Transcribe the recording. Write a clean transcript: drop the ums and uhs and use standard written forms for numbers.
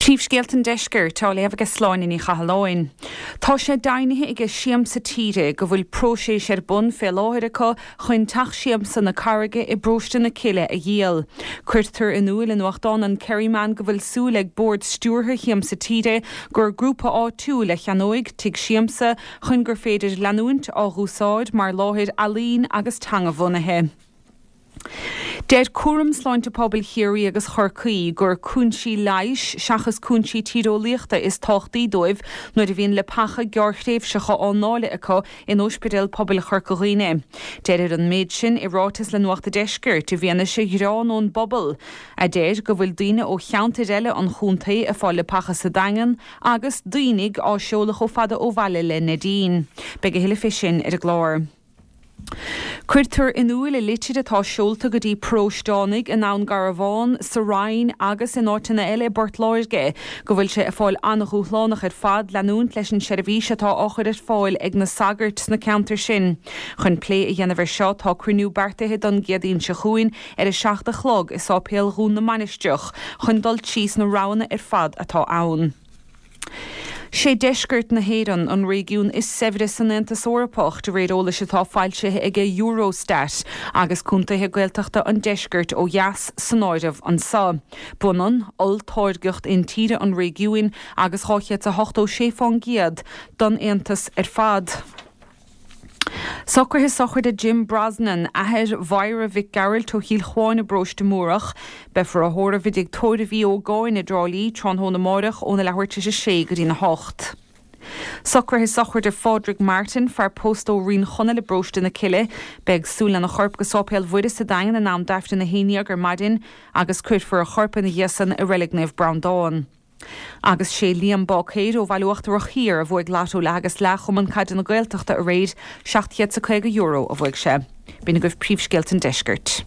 Príomhscéalta an Deiscirt á léamh aige Sláine Ní Chathalláin. Tá sé deimhnithe aige Siamsa Tíre go bhfuil próiseas ar bun fé láthair acu chun Teach Siamsa na Carraige i bParóiste na Cille a dhíol. Cuirtear in iúil i nuachtán an Kerryman go bhfuil súil ag Bord Stiúrtha Shiamsa Tíre gur grúpa áitiúil a cheannóidh Tigh Siamsa chun gur féidir leanúint á dh'úsáid mar láthair ealaín agus teanga-bhunaithe. Deir Cúram Sláinte Pobail Chiarraí agus Chorcaí gur cúinsí leighis seachas cúinsí tíreolaíochta is tábhachtaí dóibh nuair a bhíonn leapacha gearrthréimhseacha á ndáileadh acu in Ospidéal Pobail Chorca Dhuibhne. Deirtear an méid sin i ráiteas le Nuacht a' Deiscirt i bhfianaise ghearán ón bpobal a deir go bhfuil daoine ó cheantair eile an chontae ag fáil leapacha sa Daingean agus daoine á seoladh chomh fada ó bhaile le Neidín. Beidh a thuilleadh fé sin ar an gclár. Cuirtear in iúil i litir atá seolta go dtí paróisteánaigh i nDún Garbhán, sa Rinn agus in áiteanna eile i bPort Láirge go bhfuil sé ag fáil an-dhúshlánach ar fad leanúint leis an seirbhís atá á chur ar fáil ag na sagairt sna ceantair sin. Chun plé a dhéanamh air seo tá cruinniú beartaithe don gCéadaoin seo chugainn ar 7 a chlog i Sáipéal Dhún na Mainistreach chun dul tríos na roghanna ar fad atá ann. Sé deisceart na hÉireann an réigiún is saibhre san Aontas Eorpach, de réir eolais atá foilsithe ag Eurostat, agus contaetha Gaeltachta an deiscirt ó dheas san áireamh anso. B'ionann olltáirgeacht intíre an réigiúin agus 286 fán gcéad don Aontas ar fad. Socruithe sochraide Jim Brosnan, athair Mháire Mhic Gearailt ó Chill Chuáin i bParóiste Múrach. Beifear á thórramh i dTigh Tórraimh Uí Ógáin i dTrá Lí tráthnóna amáireach óna leathuair tar éis a sé go dtí'n 8. Socruithe sochraide Phádraig Martin, fear pósta ó Rinn Chonaill i bParóiste na Cille. Beidh siúl lena chorp go Sáipéal Mhuire sa Daingean in am d'Aifreann 11 ar maidin agus cuirfear a chorp ina dhiaidh san i Reilig Naomh Breandán. Agus sé Liam Báicéir ó Bhaile Uachtarach Thiar a bhuaigh Lotto Leath agus Leath Chumann Caide na Gaeltachta aréir, €750 a bhuaigh sé. B'in agaibh príomhscéalta an deiscirt.